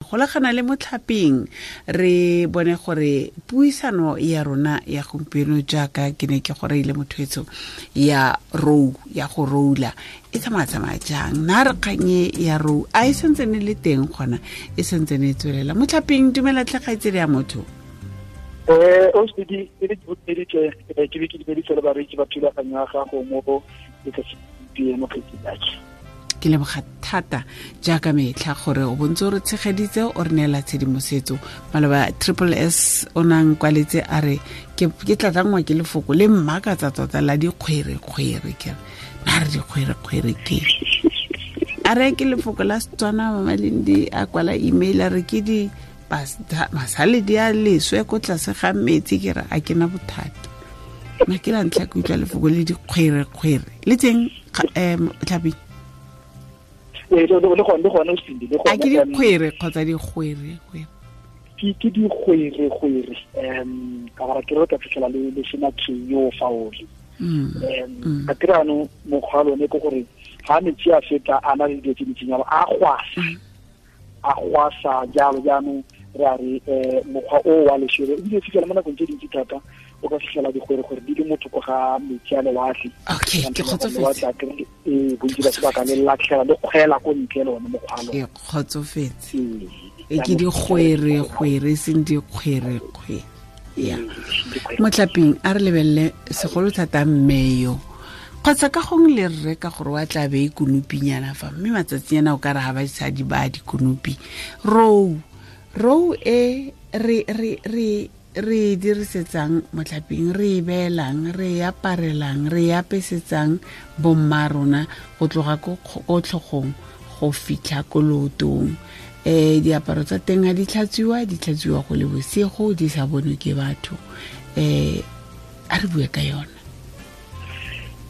Golagana le Motlhaping, re bone gore puisano ya rona ya gompieno, jaaka ke ne ke gore ile motho ya rou, ya go roula, e tsamaya-tsamaya jang? Na re kganye ya rou a e sentse ne le teng gona, e sentse ne e tswelela? Motlhaping, dumela tlhe, kgaitsedi ya motho. O se di e le ke ke be ke dumeditse le bareetsi ba thulaganyo ya gago mo letsatsi gompieno, kgaitsedi. Ke leboga thata jaaka metlha gore o bontse o re tshegeditse, o re neela tshedimosetso. Maloba Triple S o nang kwaletse a re ke tlatlangwa ke lefoko le mmakatsa tota la dikgwerekgwere. Ke re na re dikgwerekgwere ke a re ke lefoko la Setswana. Mamalindi a kwala email a re ke di masaledi a leswe ko tlase ga metsi. Ke re a ke na bothata ma ke la ntlha ke utlwa lefoko le dikgwerekgwere le teng, um Tlhaping. Ee, le gone o sindi le gone. A ke dikgwere kgotsa dikgwere? Ke dikgwerekgwere, ka gore ke re ka fitlhela le sena yo faole. Ka tirano mokgwa wa lone ke gore ga metsi a feta a na le dilo tse dintsinyalo, a gwasa, a gwasa jalo. Jaanong re a re mokgwa o wa leswele ebile fitlhela mo nakong tse dintsi thata o ka fitlhela dikgwerekgwere di le motho ko ga metsi a lewatle. Okay, ke kgotsofetse. Ee, bontsi ba sebaka le latlhela le kgwela ko ntle le one mokgwa lo. Ke kgotsofetse. E ke dikgwerekgwere, e seng dikgwerekgwere ya Motlaping. A re lebelele segolo thata mmeyo kgotsa ka gongwe le rre, ka gore wa tla be e konopinyana fa, mme matsatsinyana o ka re ga basadi ba dikonopi. Rou e re e dirisetsang, Motlhaping, re e beelang, re e aparelang, re e apesetsang bomma rona go tloga ko tlhogong go fitlha ko lootong. Diaparo tsa teng ga di tlhatswiwa, di tlhatswiwa go le bosigo, di sa bonwe ke batho. A re bue ka yona.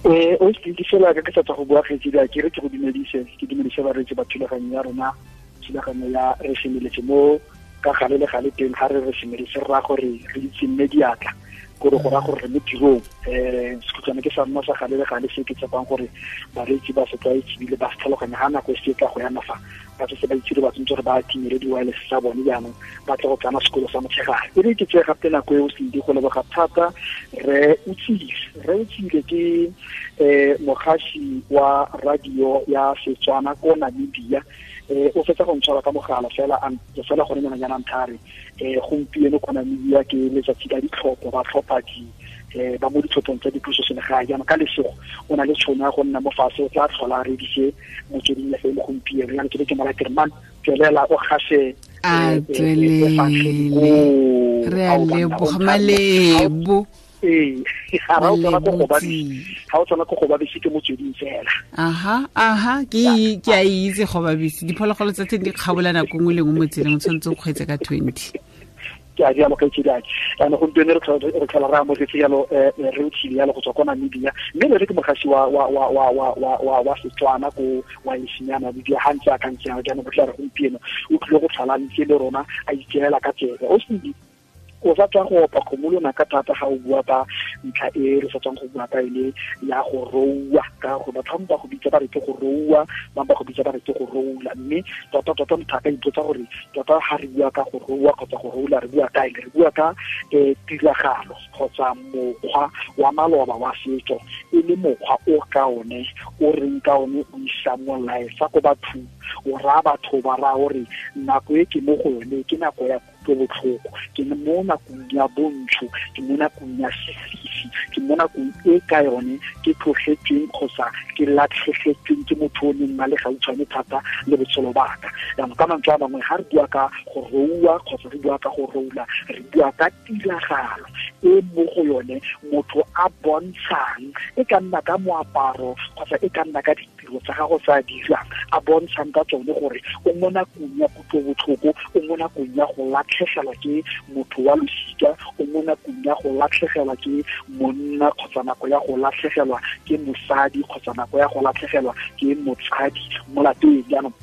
O se ke fela ka ke sa tswa go bua, kgaitsedi, a ke re ke go dumedise, ke dumedise bareetsi ba thulaganyo ya rona, thulaganyo ya Re Semeletse. Mo ka gale le gale teng ga re re semeletse, re raya gore re itse mme diatla, kore go raya gore re mo tirong. Sekhutlwane ke sa nna sa gale le gale se ke tshepang gore bareetsi ba se tlwaetse ebile ba se tlhaloganya. Ga nako e se tla go yana fa ba setse ba itse, ba tshwanetse gore ba timele di-wireless tsa bone, jaanong ba tle go tsena sekolo sa motshegare. E re ke tseye gape nako e o sedi go leboga thata re Utsile. Re Utsile ke mogasi wa radio ya Setswana ko Namibia. O fetsa go ntshwara ka mogala fela fela gone nyana nyana nthare gompieno ko Namibia ke letsatsi la ditlhopho, ba tlhopha di ba mo ditlhophong tsa dipuso selegae. Jaanong ka lesego o na le tšhono ya go nna mo fatshe, o tla tlhola a redise Motsweding FM gompieno. Jaanong ke be ke mo kere man, tswelela o gase. A tswelele, re a leboga, Malebo. Ee, ga o tswana ko go babese ke Motsweding fela. Aha, ke a itse go babese, diphologolo tsa teng di kgabola nako nngwe le nngwe mo tseleng, o tshwanetse o kgweetse ka 20. Ke a jalo, kgaitsedi ake. Jaanong gompieno re tlhola re amogetse jalo re Otshile jalo go tswa kwa Namibia, mme le re ke mogasi wa Setswana ko wa ya Namibia. Ga ntse a ka ntse jalo, jaanong bo tla re gompieno o tlile go tlhola ntse le rona a itseela ka tsebe. O sedi o sa tswa go opa kgomo lonaka thata ga o bua ka ntlha e re sa tswang go bua ka ene ya go roua, ka gore batho ba go bitsa ba re ke go roua, ba ba go bitsa ba re ke go roula. Mme tota tota motho a ka ipotsa gore tota ga re bua ka go roua kgotsa go roula, re bua ka eng? Re bua ka tiragalo kgotsa mokgwa wa maloba wa setso, e le mokgwa o ka one o reng ka one o isa molaetsa ko bathong, o raya batho ba raya gore nako e ke mo go yone ke nako ya botlhoko, ke mo nakong ya bontsho, ke mo nakong ya sefifi, ke mo nakong e ka yone ke tlogetsweng kgotsa ke latlhegetsweng ke motho o neng na le gautshwane thata le botshelo baka. Jaanong ka mantswe a mangwe, ga re bua ka go roua kgotsa re bua ka go roula, re bua ka tiragalo e mo go yone motho a bontshang, e ka nna ka moaparo kgotsa e ka nna ka ditiro tsa gago tsa dirang, a bontshang ka tsone gore o mo nakong ya kutlobotlhoko, o mo nakong ya go latlhegelwa ke motho wa losika, o mo nakong ya go latlhegelwa ke monna kgotsa nako ya go latlhegelwa ke mosadi kgotsa nako ya go latlhegelwa ke motsadi mo lapeng. Jaanong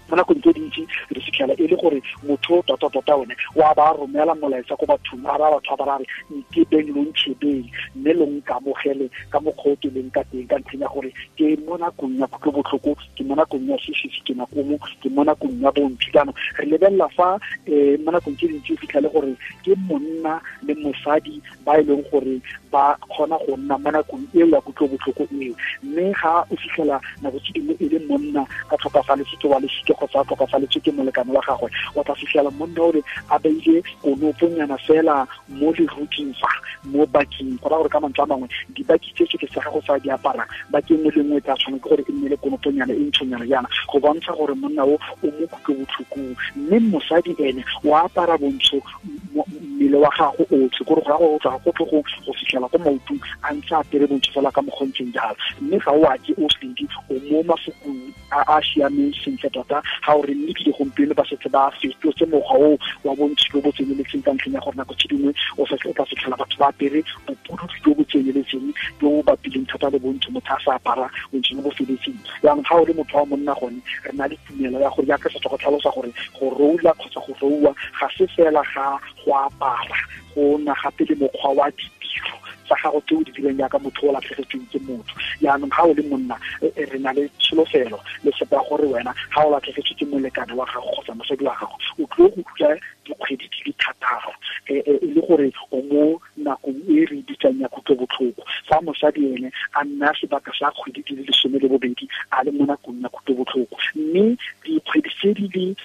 Mo nakong tse dintsi re fitlhela e le gore motho tota-tota one wa ba romela molaetsa ko bathong, a ba batho ba ba re nkebeng lo ntšhebeng mme lo nkamogele ka mokgwa o ke leng ka teng, ka ntlheng ya gore ke mo nakong ya kutlobotlhoko, ke mo nakong ya sesisi, ke nakomo, ke mo nakong ya bontsho. Jaanong re lebelela fa mo nakong tse dintsi o fitlhele gore ke monna le mosadi ba e leng gore ba kgona go nna mo nakong eo ya kutlobotlhoko eo, mme ga o fitlhela nako tse dingwe e le monna a tlhokafaletswe ke wa losika kgotsa a tlhokafaletswe ke molekane wa gagwe, o tla fitlhela monna ore a beile konoponyana fela mo leruting fa mo baking, go raya gore ka mantswe a mangwe dibaki tse tsotlhe tsa gago tsa di aparang baki nngwe le nngwe tla tshwanela ke gore e nne le konoponyana e ntshonyana jaana go bontsha gore monna o o mo kutlobotlhokong. Mme mosadi ene o apara bontsho mmele wa gago otlhe, kore go ya go tswa go tlhogong go fitlhela ko maotong a ntse a apere bontsho fela ka mokgontseng jalo. Mme ga o ake o sedi o mo mafokong a a siameng sentle tota, ga o re mme ebile gompieno ba setse ba fetotse mokgwa o wa bontsho jo bo tseneletseng, ka ntlheng ya gore nako tse dingwe o tla fitlhela batho ba apere bopududu jo bo tseneletseng jo bo bapileng thata le bontsho, motho a sa apara bontsho jo bo feletseng. Jaanong ga o le motho wa monna gone re na le tumelo ya gore jaaka setso go tlhalosa gore go roula kgotsa go rouwa ga se fela ga go apara, go na gape le mokgwa wa ditiro tsa gago tse o di dirang jaaka motho o latlhegetsweng ke motho. Jaanong ga o le monna re na le tsholofelo le sepa gore wena ga o latlhegetswe ke molekane wa gago kgotsa mosadi wa gago o tlile go dula dikgwedi di le thataro e le gore o mo nakong e re bitsang ya kutlobotlhoko, fa mosadi ene a nna sebaka sa kgwedi di le 12 a le mo nakong ya kutlobotlhoko. Mme dikgwedi tse di le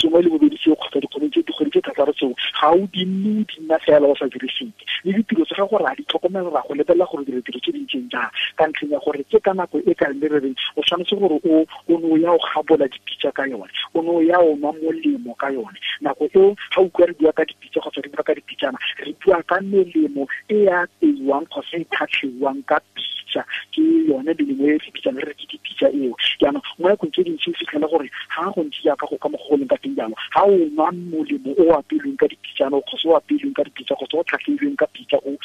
12 tseo kgotsa dikgwedi tse thataro tseo ga o di nne o di nna fela o sa dire sepe, le ditiro tsa gago ra di tlhokomela, ra go lebelela gore dira tiro tse di ntseng jang, ka ntlheng ya gore ke ka nako e ka le re reng o tshwanetse gore o ne o ya o gabola dipitsa ka yone, o ne o ya o nwa molemo ka yone. Nako eo ga o utlwa re bua ka dipitsa kgotsa re bua ka dipitsana, re bua ka melemo e ya apeiwang kgotsa e tlhatlheiwang ka pitsa, ke yone melemo e re bitsang re re ke dipitsa eo. Jaanong mo nakong tse dintsi o fitlhela gore ga go ntse jaaka go ka mokgwa go leng ka teng jalo, ga o nwa molemo o apeilweng ka dipitsana kgotsa o apeilweng ka dipitsa kgotsa o tlhatlheilweng ka pitsa o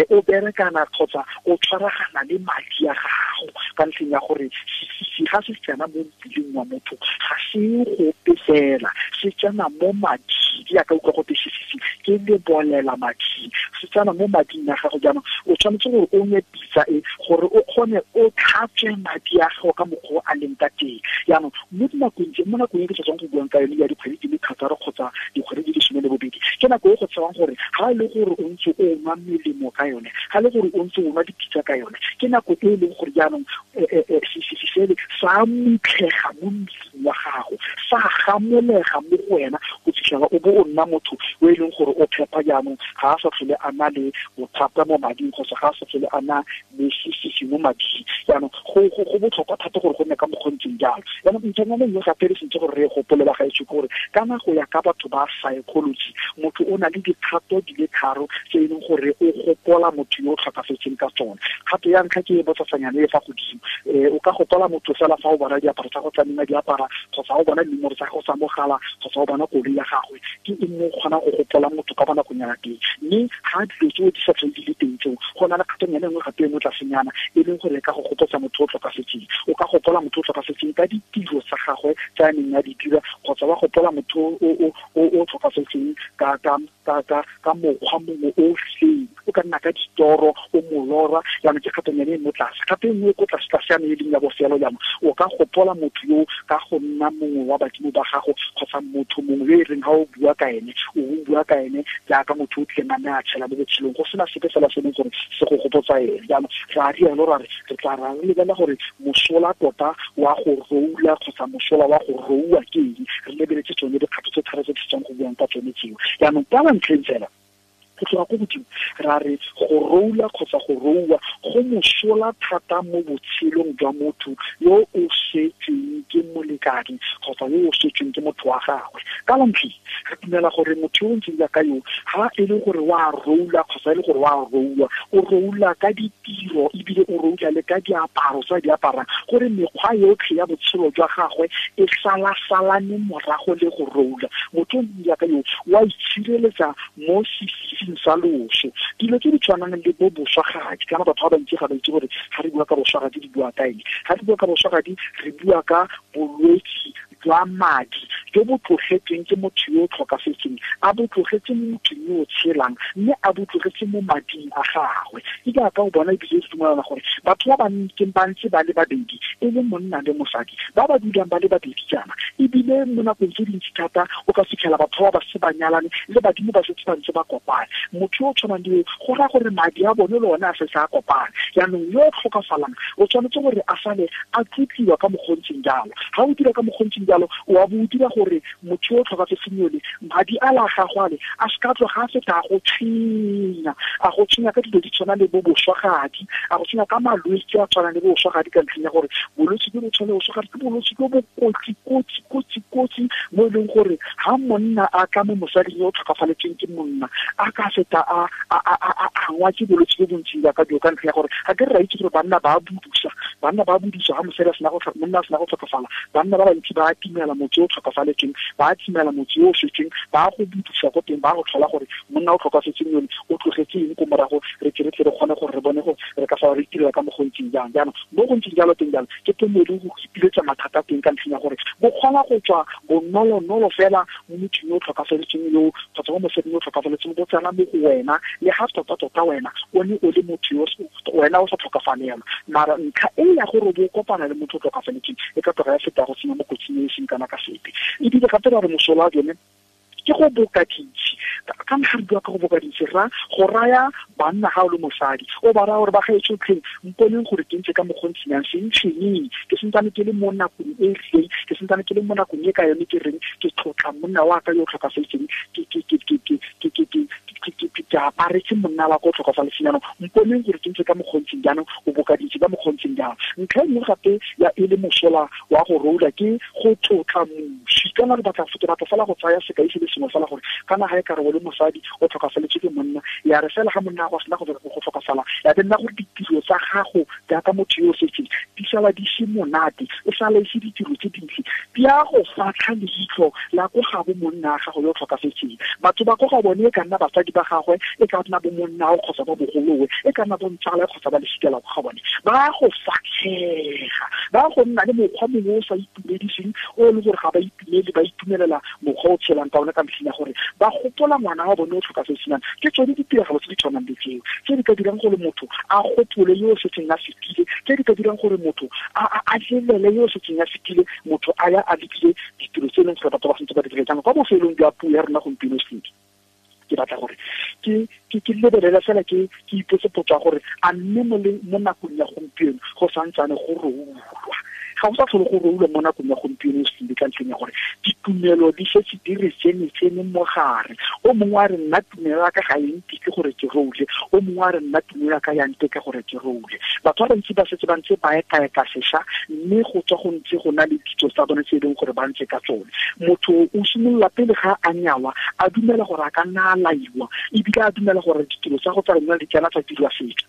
o berekana kgotsa o tshwaragana le madi a gago, ka ntlheng ya gore ga se tsena mo mmeleng wa motho ga se gope fela, se tsena mo mading, jaaka utlwa gote sesisi ke lebolela mading, se tsena mo mading a gago. Jaanong o tshwanetse gore o nwe pitsa e gore o kgone o tlhatswe madi a gago ka mokgwa o a leng ka teng. Jaanong mo dinakong tse, mo nakong e ke sa tswang go buang ka yone ya dikgwedi di le thataro kgotsa dikgwedi di le 12, ke nako e go tshewang gore ga e le gore o ntse o nwa melemo ka yone, ga e le gore o ntse o nwa dipitsa ka yone, ke nako e e leng gore jaanong sesisi sele sa mutlhega mo mmeleng wa gago, sa gamolega mo go wena go fitlhela o bo o nna motho o e leng gore o phepa. Jaanong ga a sa tlhole a na le bothata mo mading kgotsa ga a sa tlhole a na le sesisi mo mading. Jaanong go botlhokwa thata gore go nne ka mokgontseng jalo. Jaanong ntlhanyana nngwe gape re sentse gore re gopole ba gaetsho ke gore kana go ya ka batho ba psychology, motho o na le dikgato di le tharo tse e leng gore o gopola motho yo o tlhokafetseng ka tsone. Kgato ya ntlha ke e botsasanyana e fa godimo, o ka gopola motho fela fa o bona diaparo tsa go tsa di apara kgotsa o bona dinomoro tsa gago tsa mogala kgotsa o bona koloi ya gagwe, ke eng mo o kgonang go gopola motho ka bonakonyana teng. Mme ga dilo tseo di sa tlhole di le teng tseo, go na le kgatonyana e nngwe gape e mo tlasenyana e leng gore e ka go gopotsa motho o tlhokafetseng. O ka gopola motho o tlhokafetseng ka ditiro tsa gagwe tse a neng a di dira, kgotsa wa gopola motho o tlhokafetseng ka mokgwa mongwe o rileng, o ka nna ka ditoro o molora. Jaanong ke kgatonyana e mo tlase. Gape e nngwe ko tlase tlase yane e leng ya bofelo, jaanong o ka gopola motho yo ka go nna mongwe wa badimo ba gago kgotsa motho mongwe yo e reng ga o bua ka ene, o bua ka ene jaaka motho o tlileng a nne a tshela mo botshelong go sena sepe fela se leng gore se go gopotsa ene. Jaanong ra rialo ra re re tla ra lebelela gore mosola tota wa go roula kgotsa mosola wa go rouwa ke eng, re lebeletse tsone dikgato tse tharo tse di setsang go buang ka tsone tseo. Jaanong ka ntlheng fela go tloga ko godimo ra re go roula kgotsa go rouwa go mosola thata mo botshelong jwa motho yo o setsweng ke molekane kgotsa yo o setsweng ke motho wa gagwe. Ka lantlhi re dumela gore motho yo o ntseng jaaka yo ga e le gore wa roula kgotsa e le gore wa rouwa, o roula ka ditiro ebile o roula le ka diaparo tsa di aparang, gore mekgwa yotlhe ya botshelo jwa gagwe e salasalane morago le go roula. Motho o ntseng jaaka yo wa itshireletsa mo sefifing sa loso. Dilo tse di tshwanang le bo boswagadi, kana batho ba bantsi ga ba itse gore ga re bua ka boswagadi re bua ka eng. Ga re bua ka boswagadi re bua ka bolwetse jwa madi jo bo tlogetsweng ke motho yo o tlhokafetseng, a bo tlogetse mo mothong yo o tshelang, mme a bo tlogetse mo mading a gagwe. Ke jaaka o bona ebile re dumelana gore batho ba ba ntse ba le babedi, e le monna le mosadi, ba ba dulang ba le babedi jaana, ebile mo nakong tse dintsi thata o ka fitlhela batho ba ba se ba nyalane le badimo ba setse ba ntse ba kopane. Motho yo o tshwanang le yo, go raya gore madi a bone le one a setse a kopane. Jaanong yo o tlhokafalang o tshwanetse gore a sale a tlotliwa ka mokgontseng jalo. Ga o dira ka mokgontseng jalo, o a bo o dira gore motho yo o tlhokafetseng yole madi a la gagwe ale a se ka tloga a feta a go tshwenya, a go tshwenya ka dilo di tshwana le bo boswagadi, a go tshwenya ka malwetse a tshwanang le bo boswagadi, ka ntlheng ya gore bolwetse jo bo tshwana le boswagadi ke bolwetse jo bo kotsi kotsi kotsi kotsi, mo e leng gore ha monna a tla mo mosading yo o tlhokafaletsweng ke monna, a ka feta a angwa ke bolwetse jo bontsing jaaka jo, ka ntlha ya gore ga ke re ra itse gore banna ba budusa, banna ba budusa ha mosadi a sena go monna a sena go tlhokafala, banna ba bantsi ba timela motse o tlhokafaletsweng, ba timela motse o setseng, ba go budusa ko teng, ba go tlhola gore monna o tlhokafetseng yone o tlogetse eng ko morago, re tle re tle re kgone gore re bone gore re ka fa re itirela ka mogontsing jang. Jaanong mo go ntseng jalo teng jalo ke teng mo e leng go ipiletsa mathata teng, ka ntlheng ya gore bo kgona go tswa bonolonolo fela mo mothong yo o tlhokafaletseng yo, kgotsa mo mosading yo o tlhokafaletseng, bo tsena mo go wena, le ga tota-tota wena o ne o le motho yo wena o sa tlhokafalelwa. Mara ntlha e ya gore bo kopana le motho o tlhokafaletseng e ka tloga ya feta go senya mo kotsing e e seng kana ka sepe. Ebile gape ra re mosola wa jone ke go boka dintsi. Ka ntlha re bua ka go boka dintsi, ra go raya banna ga o le mosadi, o ba raya gore ba gaetsho tlheng mponeng gore ke ntse ka mokgontshinyang, se ntshwenyeng, ke santsane ke le mo nakong e rileng, ke santsane ke le mo nakong e ka yone ke reng ke tlotla monna wa ka yo o tlhokafetseng, ke aparetse monna wa ka o tlhokafaletseng, jaanong mponeng gore ke ntse ka mokgontseng jaanong, o boka dintsi ka mokgontseng jaanong. Ntlha e nngwe gape ya e le mosola wa go roula ke go tlotla moswi. Kana re batla, ke batla fela go tsaya sekai se le sengwe fela gore kana ga e kare o le mosadi o tlhokafaletswe ke monna, ya re fela ga monna wa sena go tlhokafala, ya be nna gore ditiro tsa gago jaaka motho yo o setseng di sala di se monate, o sala e se ditiro tse dintle, di a go fatlha leitlho la ko ga bo monna wa gago yo o tlhokafetseng. Batho ba ko ga bone e ka nna basadi ba gagwe, e ka nna bo monnao kgotsa ba bogolowe, e ka nna bo ntsala kgotsa ba lesika la ko ga bone, ba go fatlhega, ba go nna le mokgwa mongwe o sa itumediseng, o e leng gore ga ba itumele, ba itumelela mokgwa o tshelang ka one, ka ntlheng ya gore ba gopola ngwana wa bone o tlhokafetseng. Ke tsone ditiragalo tse di tshwanang le tseo tse di ka dirang gore motho a gopole yo o setseng a fetile, tse di ka dirang gore motho a lelele yo o setseng a fetile, motho a ya a lebile ditiro tse e leng gore batho ba santse ba di dira. Jaanong kwa bofelong jwa puo ya rona gompieno sentle, ke batla gore ke lebelele fela, ke ipotse potso ya gore a mme mo nakong ya gompieno go santsane go roulwa. Ga go sa tlhole go roulwa mo nakong ya gompieno sentle, ka ntlheng ya gore ditumelo di setse di re tsene mo gare. O mongwe a re nna tumelo ya ka ga e nteke gore ke roule, o mongwe a re nna tumelo ya ka ya nteke gore ke roule. Batho ba bantsi ba setse ba ntse ba ekaeka sešwa, mme go tswa go ntse go na le ditso tsa bone tse e leng gore ba ntse ka tsone. Motho o simolola pele ga a nyalwa a dumela gore a ka nna a laiwa, ebile a dumela gore ditiro tsa go tsa lenyalo di tsena tsa dirwa setso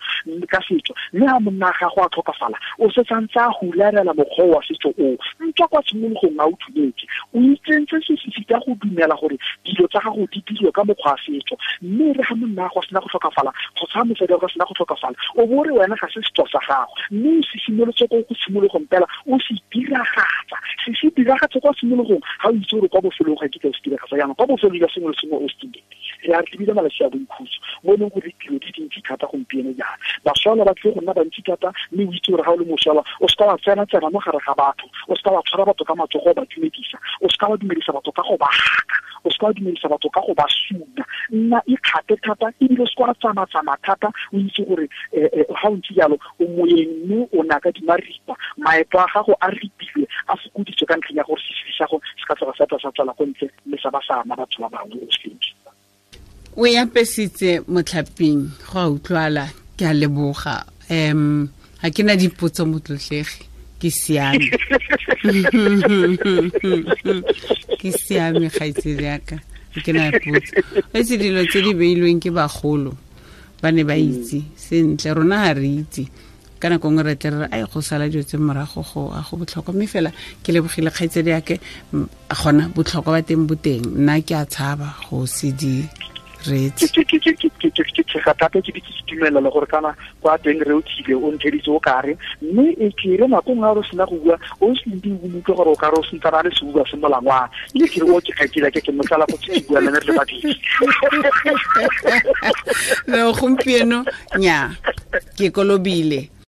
ka setso, mme ha monna ga go a tlhokafala o setse a ntse a hularela mokgwa wa setso o ntswa kwa tshimologong a o dumetse. O itsentse sesisi ka go dumela gore dilo tsa gago di dirwe ka mokgwa wa setso, mme re ga monna go sena go tlhokafala kgotsa mosadi wa go sena go tlhokafala, o bo re wena ga se setso sa gago, mme o se simolotse ko go tshimologong fela o se diragatsa, se diragatse kwa tshimologong, ga o itse gore kwa bofelong ga kitla o se diragatsa. Jaanong kwa bofelong jwa sengwe le sengwe o se re a lebile malatsi a boikhutso mo e leng gore ditiro di dintsi thata gompieno jaana, bašwala ba tlile go nna bantsi thata, mme o itse gore ga o le mošwala o seka wa tsena-tsena mo gare ga batho, o seka wa tshwara batho ka matsogo o ba dumedisa, o seka wa dumedisa batho ka go ba haka, o seka wa dumedisa batho ka go ba suna. Nna ikgate thata, ebile o seka wa tsamaya-tsamaya thata, o itse gore ga o ntse jalo o moyeng mme o na ka dimaripa, maeto a gago a ripilwe, a fokoditswe ka ntlheng ya gore sesedi sa go se ka tloga sa tla sa tswela ko ntle mme sa ba sa ama batho ba bangwe. O sentle o e apesitse motlhaping, go a utlwala, ke a leboga. Ga ke na dipotso motlotlegi, ke siame. Ke siame kgaitsedi yaka, ga ke na potso. Etse dilo tse di beilweng ke bagolo ba ne ba itse sentle, rona ga re itse. Ka nako nngwe re tle re re ai go sala dilo tse morago go a go botlhokwa, mme fela ke lebogile kgaitsedi yake, gona botlhokwa ba teng bo teng, nna ke a tshaba go se di reetse. Ke tshega thata ke ke itumela le gore kana kwa teng re o thile o ntheditse o kare, mme e ke re nako nngwe re sena go bua o se ndi o utlwe gore o kare o sentsana le seuba se molangwana, ke re o ke kgaitsedi ke motsala go ke bua le re le babedi. No, gompieno nya ke kolobile.